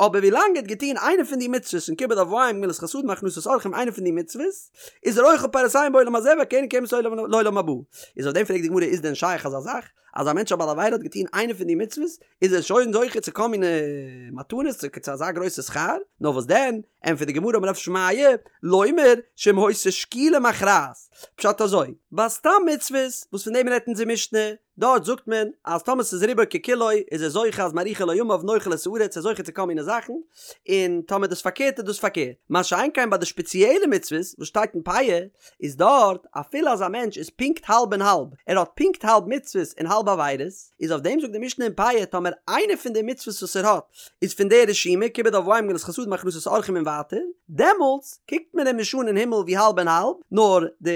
אבער ווילאנג ער האט געטון איינע פון די מצוות פון כיבוד אב ואם, גמילות חסדים, הכנסת אורחים, איינע פון די מצוות, איז ער אוכל פירותיהם בעולם הזה והקרן קיימת לעולם הבא. איז אויף דעם פרעגט די גמרא איז דען שייך אזא זאך אז א מענטש א בעל עבירה האט געטון איינע פון די מצוות איז ער שוין זוכה צו כל מיני מתנות צו צו אזא גרויסע שכר? נאר וואס דען, ענטפערט די גמרא אמר רב שמעיה, לומר שאם היתה שקילה מכרעת, פשט אזוי, ביי סתם מצוות וואס פון דעם רעדט אונזער משנה, דארט זאגט מען אז טאמער ס'איז רובו ככולו איז ער זוכה אז מאריכין לו ימיו נוחל את הארץ ער איז זוכה צו כל מיני זאכן, און טאמער דאס פארקערט איז דאס פארקערט. מה שאין כן ביי די שפעציעלע מצוות וואס שטייט אין פאה, איז דארט אפילו אז א מענטש איז פונקט האלב און האלב, ער האט פונקט האלב מצוות און האלב עבירות, איז אויף דעם זאגט די משנה אין פאה טאמער איינע פון די מצוות וואס ער האט איז פון די רשימה כיבוד אב ואם גמילות חסדים הכנסת אורחים און ווייטער, דעמאלטס קוקט מען אים נישט אן אין הימל ווי האלב און האלב, נאר די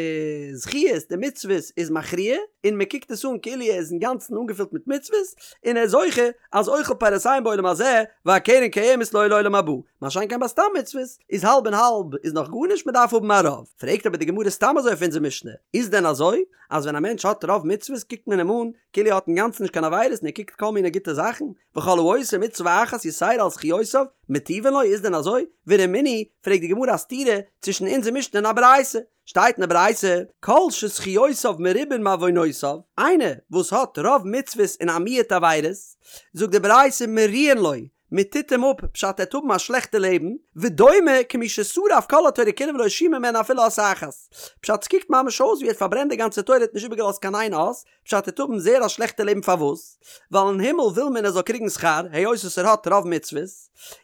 זכיות די מצוות איז מכריע, און מען קוקט עס אן כאילו ער איז אינגאנצן אנגעפילט מיט מצוות, און ער איז זוכה אז אוכל פירותיהם בעולם הזה והקרן קיימת לו לעולם הבא, מה שאין כן ביי סתם מצוות איז האלב און האלב איז נאך גארנישט מען דארף האבן א רוב, פרעגט אבער די גמרא סתם אזוי אויף אונזער משנה, איז דען אזוי אז ווען א מענטש האט רוב מצוות קוקט מען אים אן כאילו ער האט אינגאנצן נישט קיין עבירות און ער קריגט כל מיני גוטע זאכן, וכל העושה מצוה אחת יתירה על זכיותיו, מטיבין לו, איז דען אזוי? ורמינהי, פרעגט די גמרא א סתירה צווישן אונזער משנה און א ברייתא, שטייט אין די ברייתא, כל שזכיותיו מרובין מעוונותיו, איינער וואס האט רוב מצוות און א מיעוט עבירות, זאגט די ברייתא מריעין לו, מען טוט אים אפ, פשט ער וועט האבן א שלעכטע לעבן, ודומה כמי ששרף כל התורה כולה ולא השאיר ממנה אפילו אות אחת, פשט ס'קוקט ממש אויס ווי ער האט פארברענט די גאנצע תורה ער האט נישט איבערגעלאזט קיין איין אות, פשט ער וועט האבן זייער א שלעכטע לעבן פארוואס? ווייל אין הימל וויל מען ער זאל קריגן שכר היות וואס ער האט רוב מצוות,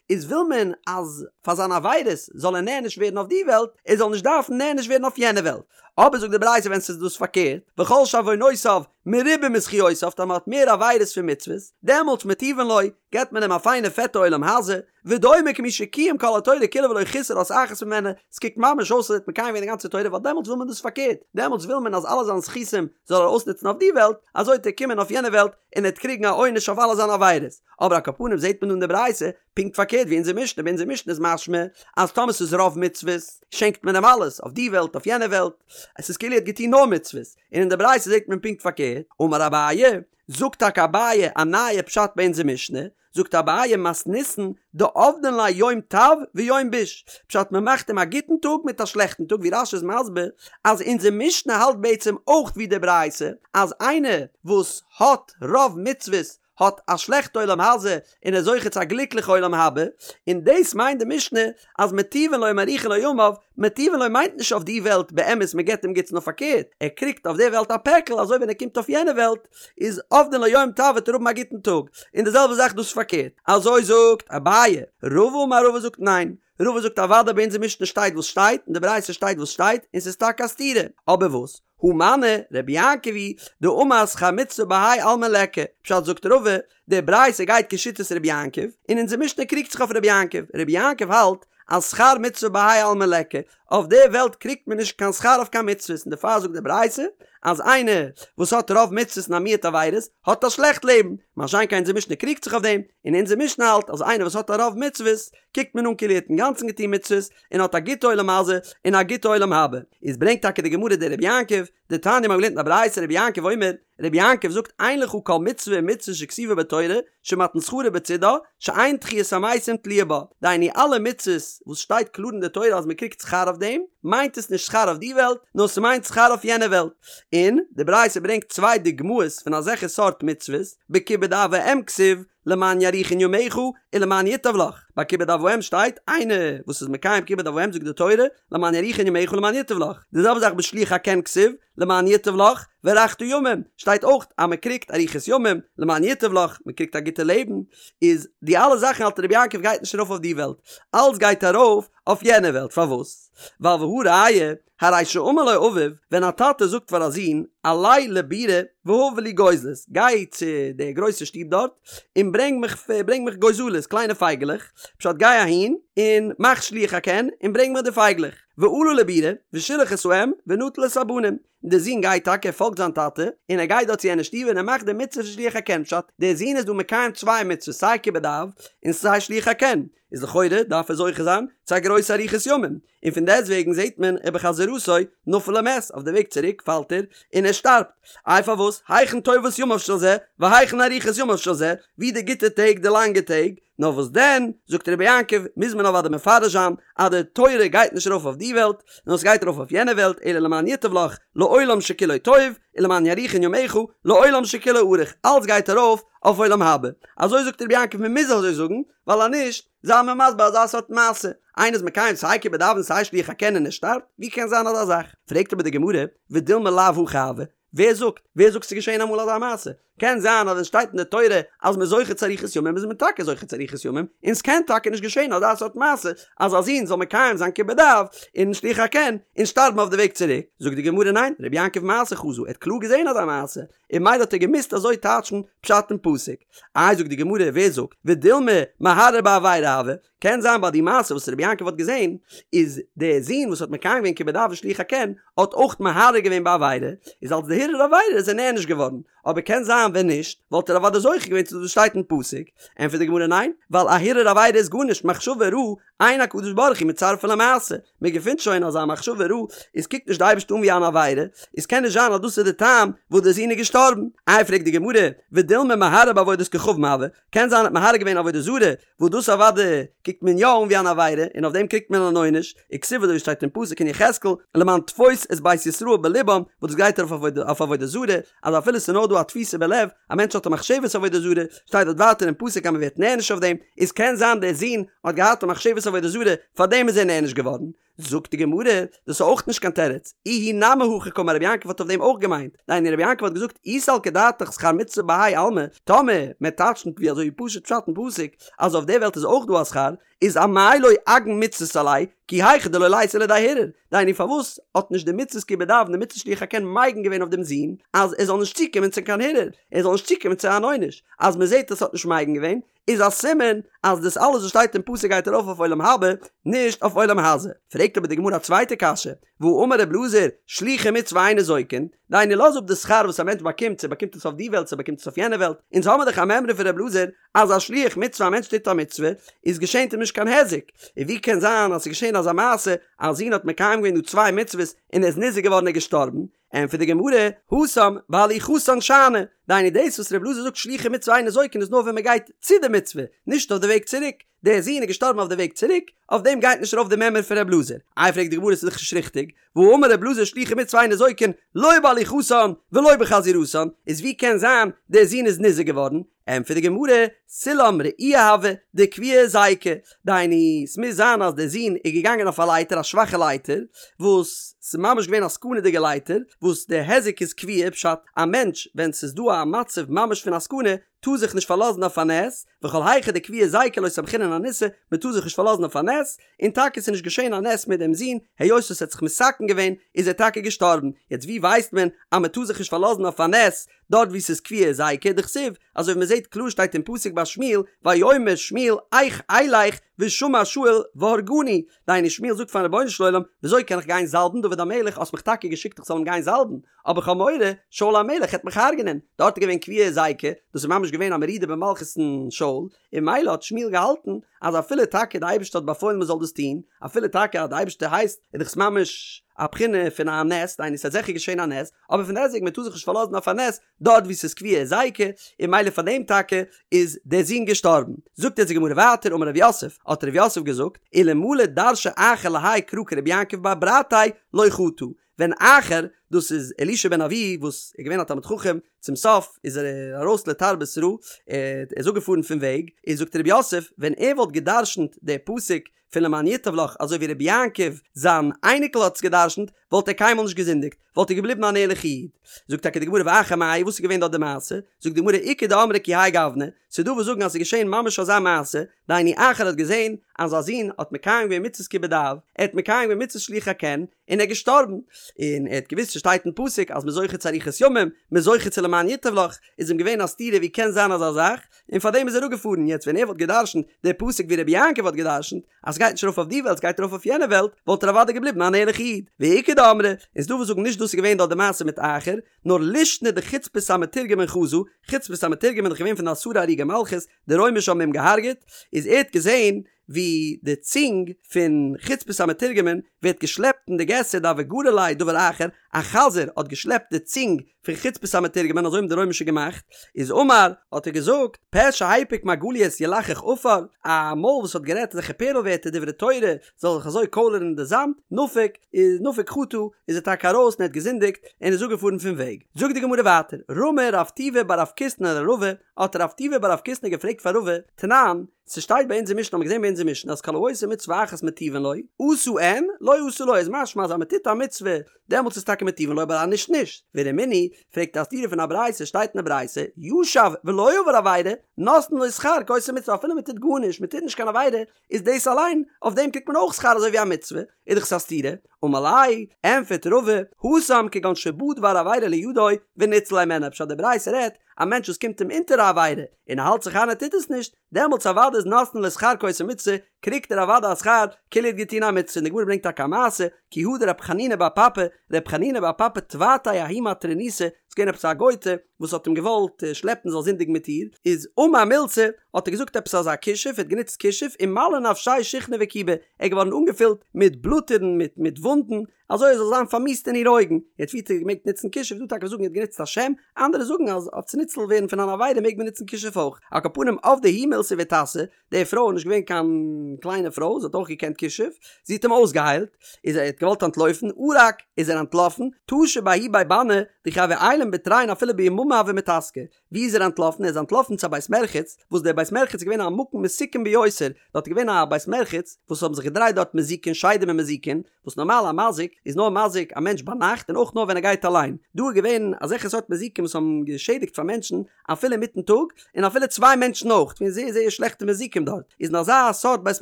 איז וויל מען אז פאר זיינע עבירות זאל ער נענש ווערן אויף די וועלט, ער זאל נישט דארפן נענש ווערן אויף יענע וועלט. אבער זאגט די ברייתא ווען ס'איז דאס פארקערט, וכל שעוונותיו מרובים מזכיותיו טאמער האט מער עבירות פון מצוות, דעמאלטס מטיבין לו, געבט מען אים א פיינע פעטע עולם הזה, ודומה כמי שקיים כל התורה כולה ולא חיסר אות אחת ממנה, ס'קוקט ממש אויס אז ער האט מקיים געווען די גאנצע תורה ווייל דעמאלטס וויל מען דאס פארקערט, דעמאלטס וויל מען אז אלע זיינע זכותים זאל ער אויסנוצן אויף די וועלט, אזוי וועט ער קומען אויף יענע וועלט און ער וועט קריגן א עונש אויף אלע זיינע עבירות. אבער על כל פנים זעט מען דא אין די ברייתא פונקט פארקערט ווי אונזער משנה, ביי אונזער משנה איז משמע אז טאמער ס'איז רוב מצוות שענקט מען אים אלעס, אויף די וועלט אויף יענע וועלט, עס איז כאילו ער האט געטון נאר מצוות, און אין די ברייתא זעט מען פונקט פארקערט, אמר אביי, זאגט טאקע אביי א נייע פשט ביי אונזער משנה, זאגט אביי מתניתין דעבדין ליה יום טב ויום ביש, פשט מען מאכט אים א גוטן טאג מיט א שלעכטן טאג ווי רש"י איז מסביר אז אונזער משנה האלט בעצם אויך ווי די ברייתא אז איינער וואס האט רוב מצוות האט א שלעכטע עולם הזה און איז זוכה צו א גליקליכע עולם הבא, און דאס מיינט די משנה אז מטיבין לו ומאריכין לו ימיו, מטיבין לו מיינט נישט אויף די וועלט באמת מען געבט אים גוטס נאר פארקערט ער קריגט אויף די וועלט א פעקל אזוי ווען ער קומט אויף יענע וועלט איז עובדין לו יום טב וועט ער האבן א גוטן טאג, און די זעלבע זאך דאס פארקערט, אזוי זאגט אביי, רבא אמר רבא זאגט ניין, רבא זאגט אוודאי ביי אונזער משנה שטייט וואס שטייט און די ברייתא שטייט וואס שטייט און ס'איז טאקע א סתירה, אבער וואס? הא מני רבי יעקב היא דאמר שכר מצוה בהאי עלמא ליכא, פשט זאגט רבא, די ברייתא גייט כשיטת רבי יעקב, און אונזער משנה קריגט זיך אויף רבי יעקב, רבי יעקב האלט אז שכר מצוה בהאי עלמא ליכא, אויף די וועלט קריגט מען נישט קיין שכר אויף קיין מצוות און דערפאר זאגט די ברייתא אז איינער וואס האט רוב מצוות און א מיעוט עבירות האט א שלעכט לעבן, מה שאין כן אונזער משנה קריגט זיך אויף דעם, און אונזער משנה האלט אז איינער וואס האט א רוב מצוות קוקט מען אן כאילו ער האט אינגאנצן געטון מצוות און האט א גוטע עולם הזה און א גוטע עולם הבא. איז ברענגט טאקע די גמרא די רבי יעקב, דתניא מ'האט געלערנט אין א ברייתא רבי יעקב אומר, רבי יעקב זאגט אין לך כל מצוה ומצוה שכתובה בתורה שמתן שכרה בצידה שאין תחיית המתים תלויה בה, דהיינו אלע מצוות וואס שטייט קלאר אין די תורה אז מ'קריגט שכר אויף דעם, מיינט עס נישט שכר אויף די וועלט, נאר ס'מיינט שכר אויף יענע וועלט. און די ברייתא ברענגט צוויי דוגמאות פון אזעלכע סארט מצוות, בכיבוד אב ואם כתיב, למען יאריכון ימיך ולמען ייטב לך, ביי כיבוד אב ואם שטייט, איינער וואס איז מקיים כיבוד אב ואם זאגט די תורה, למען יאריכון ימיך ולמען ייטב לך, די זעלבע זאך בשילוח הקן כתיב, למען ייטב לך, והארכת ימים, שטייט אויך אז מען קריגט אריכות ימים, למען ייטב לך, מען קריגט א גוטע לעבן, איז די אלע זאכן האלט רבי יעקב גייט נישט ארויף אויף די וועלט, אלס גייט ארויף אויף יענע וועלט, פארוואס? ווייל והא ראיה, הרי שאמר לו אביו, ווען א טאטע זאגט פאר א זון, עלה לבירה והבא לי גוזלות, גיי צו די גרויסע שטוב דארט, און ברענג מיך ברענג מיך גוזלות, קליינע פייגעלעך, פשט גיי אהין, און מאך שילוח הקן, און ברענג מיך די פייגלעך. ועלה לבירה, ושילח את האם, ונטל את הבנים. דער זון גייט טאקע, ער פאלגט זיין טאטע, און ער גייט דארט צו יענע שטוב און ער מאכט די מצוה פון שילוח הקן, פשט, דער זון איז דא מקיים צוויי מצוות סיי כיבוד אב און סיי שילוח הקן, איז לכאורה דארף ער זוכה זיין צו א גרויסע אריכות ימים, און פון דעסט וועגן זעט מען ובחזירתו נפל ומת, אויף די וועג צוריק פאלט ער און ער שטארבט, איי פארוואס, היכן טובת ימיו של זה, והיכן אריכות ימיו של זה, ווי די גוטע טעג די לאנגע טעג, נאר וואס דען, זאגט רבי יעקב, מוז מען אוודאי מפרש זיין אז די תורה גייט נישט ארויף אויף די וועלט, נאר עס גייט ארויף אויף יענע וועלט, אלא למען ייטב לך לעולם שכולו טוב, ולמען יאריכון ימיך לעולם שכולו ארוך, אלץ גייט ארויף אויף עולם הבא. אזוי זאגט רבי יעקב מען מוז אזוי זאגן, ווייל אז נישט, זיי מיר מסביר אזא סארט מעשה, איינער איז מקיים סיי כיבוד אב און סיי שילוח הקן און ער שטארבט, ווי קען זיין אזא זאך? פרעגט אבער די גמרא, ודילמא לאו הכי הוה, ווער זאגט? ווער זאגט ס'איז געשען אמאל אזא מעשה? קען זיין אז ווען ס'שטייט אין די תורה אז מ'איז זוכה צו אריכות ימים איז מען טאקע זוכה צו אריכות ימים, און ס'קען טאקע נישט געשען אזא סארט מעשה אז א זון זאל מקיים זיין כיבוד אב און שילוח הקן און שטארבן אויף די וועג צוריק. זאגט די גמרא ניין, רבי יעקב מעשה חזא, ער האט קלאר געזען אזא מעשה, און ממילא האט ער געמוזט אזוי טייטשן פשט אין פסוק. איי זאגט די גמרא ווער זאגט? ודילמא מהרהר בעבירה הוה, קען זיין ביי די מעשה וואס רבי יעקב האט געזען, איז דער זון וואס האט מקיים געווען כיבוד אב און שילוח הקן, האט אויך מהרהר געווען בעבירה, איז אלס די הרהור עבירה איז ער נענש געווארן, אבער קען זיין ווען נישט, וואלט ער אוודאי זוכה געווען צו דאס וואס שטייט אין פסוק, ענטפערט די גמרא ניין, ווייל א הרהור עבירה איז גארנישט, מחשבה רעה, אין הקדוש ברוך הוא מצרפה למעשה, מען געפינט שוין אז א מחשבה רעה איז קוקט נישט די אייבערשטער אן ווי אן עבירה, איז קען נישט זיין אז דאס איז די טעם וואס דער זון איז געשטארבן, איי פרעגט די גמרא, ודילמא מהרהר בעבודת כוכבים הוה, קען זיין ער האט מהרהר געווען עבודה זרה, וואס דאס אוודאי קוקט מען יא אן ווי אן עבירה, און אויף דעם קריגט מען אן עונש, וכתיב אזוי ווי שטייט אין פסוק אין יחזקאל, למען תפוש את בית ישראל בלבם, וואס דאס גייט ארויף אויף עבודה זרה, אז אפילו ס'איז נאר דא א תפיסה בלב, א מענטש האט א מחשבת עבודה זרה, שטייט דארט ווייטער אין פסוק אז מען ווערט נענש אויף דעם, איז קען זיין דער זון האט געהאט א מחשבת עבודה זרה, פארדעם איז ער נענש געווארן. זאגט די גמרא, דאס איז אויך נישט קיין תירוץ, איהו נמי הכי קאמר רבי יעקב האט אויף דעם אויך געמיינט, דהיינו רבי יעקב האט געזאגט אי סלקא דעתך שכר מצוה בהאי עלמא, טאמער מען טייטשט ווי אזוי פשוט פשט אין פסוק אז אויף די וועלט איז אויך דא א שכר, איז אמאי לא אגין מצוות עליה, כי היכי דלא ליתי לידי הרהור, דהיינו פארוואס האט נישט די מצוות כיבוד אב און די מצוות שילוח הקן מגין געווען אויף דעם זון אז ער זאל נישט צוקומען צו קיין הרהור, ער זאל נישט צוקומען צו אן עונש, אז מען זעט אז ס'האט נישט מגין געווען, איז א סימן אז דאס אלעס וואס שטייט אין פסוק גייט ארויף אויף עולם הבא, נישט אויף עולם הזה. פרעגט אבער די גמרא א צווייטע קשיא, והאמר ר' אלעזר, שלוחי מצוה אין ניזוקין, דהיינו לאז אפ די שכר וואס א מענטש באקומט, צו ער באקומט עס אויף די וועלט צו ער באקומט עס אויף יענע וועלט, אונז האמיר דאך א מימרא פון ר' אלעזר אז א שליח מצוה א מענטש טוט א מצוה איז געשענט אים נישט קיין היזק, און ווי קען זיין אז ס'איז געשען אזא מעשה אז א זון האט מקיים געווען דא צוויי מצוות און ער איז ניזוק געווארן און געשטארבן, ענטפערט די גמרא, התם בהליכתן שאני, דהיינו דאס וואס ר' אלעזר זאגט שלוחי מצוה אין ניזוקין איז נאר ווען מען גייט צו די מצוה, נישט אויף די וועג צוריק, דער זון איז געשטארבן אויף די וועג צוריק, אויף דעם גייט נישט ארויף די מימרא פון ר' אלעזר. איי פרעגט די גמרא ס'איז דאך נישט ריכטיג, והאמר ר' אלעזר שלוחי מצוה אין ניזוקין לא בהליכתן ולא בחזירתן, איז ווי קען זיין דער זון איז ניזוק געווארן? ענטפערט די גמרא, סולם רעוע הוה דקביעי היזיקא, דהיינו ס'מוז זיין אז דער זון איז געגאנגען אויף א לייטער א שוואכע לייטער, וואס ס'איז ממש געווען א סכנה'דיגע לייטער, וואס די היזק איז קביעא, פשט, א מענטש ווען ס'איז דא א מצב ממש פון א סכנה, טאר זיך נישט פארלאזן אויף א נס, וכל היכא דקביעי היזיקא לא סמכינן אניסא, מ'טאר זיך נישט פארלאזן אויף א נס, און טאקע ס'איז נישט געשען א נס מיט דעם זון, היות עס האט זיך מתקן געווען איז ער טאקע געשטארבן, יעצט ווי ווייסט מען אז מ'טאר זיך נישט פארלאזן אויף א נס, דארט וואו ס'איז קביעי היזיקא, דכתיב, אזוי ווי מ'זעט קלאר שטייט אין פסוק ביי שמואל, ויאמר שמואל איך אלך ושמע שאול והרגני, דהיינו שמואל זאגט פארן רבונו של עולם, וויאזוי קען איך גיין זאלבן דוד המלך, האסט מיך טאקע געשיקט איך זאל אים גיין זאלבן, אבער כ'האב מורא, שאול המלך העט מיך הרג'נען, דארט איז געווען קביעי היזיקא, דאס איז ממש געווען א מרידה במלכות אין שאול, און ממילא האט שמואל געהאלטן אז אפילו טאקע די אייבערשטער האט באפוילן מען זאל דאס טון, אפילו טאקע אז די אייבערשטער הייסט, איז דאך עס ממש א בחינה פון א נס, דהיינו ס'האט זיכער געשען א נס, אבער פון דעסטוועגן מען טאר זיך נישט פארלאזן אויף א נס דארט וואו ס'איז קביעי היזיקא, און ממילא פאר דעם טאקע איז דער זון געשטארבן. זאגט יעצט די גמרא ווייטער אמר רב יוסף, האט רב יוסף געזאגט, אלמלא דרשיה אחר להאי קרא כרבי יעקב בר ברתיה לא חטא, ווען אחר, דאס איז אלישע בן אבויה וואס איז געווען א תלמיד חכם, צום סוף איז ער ארויס לתרבות רעה, ער איז אפגעפארן פון וועג, איז זאגט רב יוסף, ווען ער וואלט גע'דרש'נט די פסוק פון למען ייטב לך אזוי ווי רבי יעקב זיין אייניקל האט עס גע'דרש'נט, וואלט ער קיינמאל נישט געזינדיגט, וואלט ער געבליבן אן ערליכע איד. זאגט טאקע די גמרא ואחר מאי, וואס איז געווען דארט די מעשה? זאגט די גמרא איכא דאמרי כי האי גוונא, ס'איז דא וואס זאגן אז ס'איז געשען ממש אזא מעשה, דהיינו אחר האט געזען אז זיין זון האט מקיים געווען מצוות כיבוד אב, ער האט מקיים געווען מצוות שילוח הקן, און ער איז געשטארבן, און ער האט געוואוסט ס'שטייט אין פסוק אז מ'איז זוכה צו אריכות ימים, מ'איז זוכה צו למען ייטב לך, איז אים געווען א סתירה ווי קען זיין אזא זאך, און פארדעם איז ער אפגעפארן, יעצט ווען ער וואלט גע'דרש'נט די פסוק ווי רבי יעקב האט גע'דרש'נט, אז ס'גייט נישט ארויף אויף די וועלט ס'גייט ארויף אויף יענע וועלט, וואלט ער אוודאי געבליבן אן ערליכע איד. ואיכא דאמרי, און ס'דא וואס זאגן נישט דאס איז געווען דארט די מעשה מיט אחר, נאר לישנא דחוצפית המתורגמן חזא, חוצפית המתורגמן איז דאך געווען פון די עשרה הרוגי מלכות, די רוימישע האבן אים געהארגעט, איז ער האט געזען ווי די צונג פון חוצפית המתורגמן ווערט געשלעפט אין די געסער דהוה גרי ליה דבר אחר, א חזיר האט געשלעפט די צונג פון חוצפית המתורגמן אזוי האבן די רוימישע געמאכט, איז אמר, האט ער געזאגט, פה שהפיק מרגליות ילחך עפר, א מויל וואס האט גערעדט אזעלכע פערל ווערטער דברי תורה זאל זיך אזוי קוילערן אין די זאמד, נפק, איז נפק חטא, איז ער טאקע ארויס און ער האט געזינדיגט און איז אפגעפארן פון וועג. זאגט די גמרא ווייטער, רמי רב טובי בר רב קיסנא לרבא, האט רב טובי בר רב קיסנא געפרעגט פאר רבא, תנן, ס'שטייט ביי אונזער משנה האמיר געזען ביי אונזער משנה אז כל העושה מצוה אחת מטיבין לו, עשה אין, לא עשה לא, איז משמע אז אז מ'טוט א מצוה דעמאלטס איז טאקע מטיבין לו אבער אז נישט נישט. ורמינהי, פרעגט א סתירה פון א ברייתא, שטייט אין די ברייתא, ישב ולא עבר עבירה, נותנין לו שכר כעושה מצוה אפילו מ'טוט גארנישט, מ'טוט נישט קיין עבירה, איז דאס אליין, אויף דעם קריגט מען אויך שכר אזוי ווי א מצוה, איז דאך עס א סתירה, אמר ליה, ענפערט רבא, התם כגון שבא דבר עבירה לידו וניצל הימנה, פשט די ברייתא רעדט, א מענטש וואס קומט אים אונטער א עבירה, און ער האלט זיך איין ער טוט עס נישט, דעמאלטס אוודאי איז נותנין לו שכר כעושה מצוה, קריגט ער אוודאי א שכר כאילו ער האט געטון א מצוה, און די גמרא ברענגט טאקע א מעשה, כי הא דרב חנינא בר פפא, רב חנינא בר פפא תבעתיה ההיא מטרוניתא, ס'איז געווען עפעס א גויטע וואס האט אים געוואלט שלעפן זאל זינדיגן מיט איר, איז אמר מילתא, האט ער געזאגט עפעס אזא כישוף, ער האט גענוצט כישוף, ומלי נפשיה שיחנא וכיבא, ער איז געווארן אנגעפילט מיט בלאטערן מיט מיט וואונדן, אזוי ער זאל זיין פארמיסט אין איר אויגן, יעצט ווי האט ער געמעגט נוצן כישוף, דא טאקע זאגן ער האט גענוצט א שם, אנדערע זאגן אז אויף צו ניצל ווערן פון אן עבירה מעג מען נוצן כישוף אויך, על כל פנים עבדה היא מילתא ואיתסי, די פרוי איז נישט געווען קיין קליינע פרוי, זי האט אויך געקענט כישוף, זי האט אים אויסגעהיילט, איז ער האט געוואלט אנטלויפן, ערק, איז ער אנטלאפן, טשא בההוא בי בני, דכי הוו עיילין בתרין אפילו ביממא הוו מיתסקי, ווי איז ער אנטלאפן? ער איז אנטלאפן צו א בית מרחץ, וואס דער בית מרחץ איז געווען א מקום מסוכן ביותר, דארט איז געווען א בית מרחץ וואס האבן זיך געדרייט דארט מזיקין, שדים און מזיקין, וואס נארמאל א מזיק איז נאר מזיק א מענטש ביינאכט און אויך נאר ווען ער גייט אליין, דא איז געווען אזעלכע סארט מזיקים וואס האבן געשעדיגט פאר מענטשן אפילו אינמיטן טאג, און אפילו צוויי מענטשן אויך, געווען זייער זייער שלעכטע מזיקים דארט, איז אין אזא סארט בית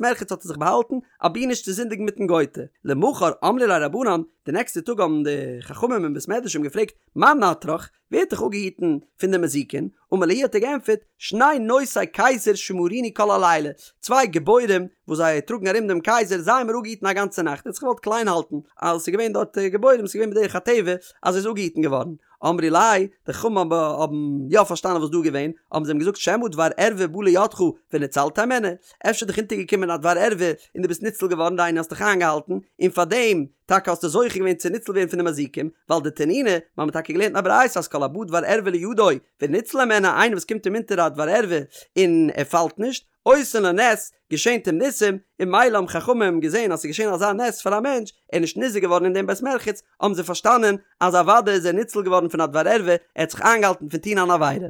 מרחץ האט ער זיך באהאלטן, אבי נישט צו זינדיגן מיטן גויטע. למחר אמרו ליה רבנן, די נעקסטע טאג האבן די חכמים אין בית מדרש אים געפרעגט, מאן נטרך, ווער האט דיך אפגעהיטן פון די מזיקין? אמר להו האט ער געענטפערט, שני נושאי קיסר שמרוני כל הלילה, צוויי גיבורים וואס זיי טראגן ארום דעם קייזער, זיי האבן מיר אפגעהיטן א גאנצע נאכט, ער האט זיך געוואלט קליין האלטן אז עס איז געווען דארט גיבורים, עס איז געווען בדרך הטבע אז ער איז אפגעהיטן געווארן. אמרו ליה, די חכמים האבן יא פארשטאנען וואס דא איז געווען, האבן זיי אים געזאגט שמא דבר ערווה בא לידך וניצלת הימנה, אפשר איז דיך אונטערגעקומען א דבר ערווה און דו ביסט ניצל געווארן, דהיינו האסט דיך איינגעהאלטן, און פארדעם טאקע האסטו זוכה געווען צו ניצל ווערן פון די מזיקים, ווייל דתנינא, מיר האבן טאקע געלערנט אין א ברייתא אז כל הבא דבר ערווה לידו וניצל הימנה, איינער וואס קומט אים אונטער א דבר ערווה און ער פאלט נישט, עושין לו נס, געשענט אים ניסים, און ממילא האבן חכמים געזען אז ס'איז געשען אזא נס פאר א מענטש, ער איז נישט ניזוק געווארן אין דעם בית מרחץ, האבן זיי פארשטאנען אז אוודאי איז ער ניצל געווארן פון א דבר ערווה, ער האט זיך איינגעהאלטן פון טון אן עבירה.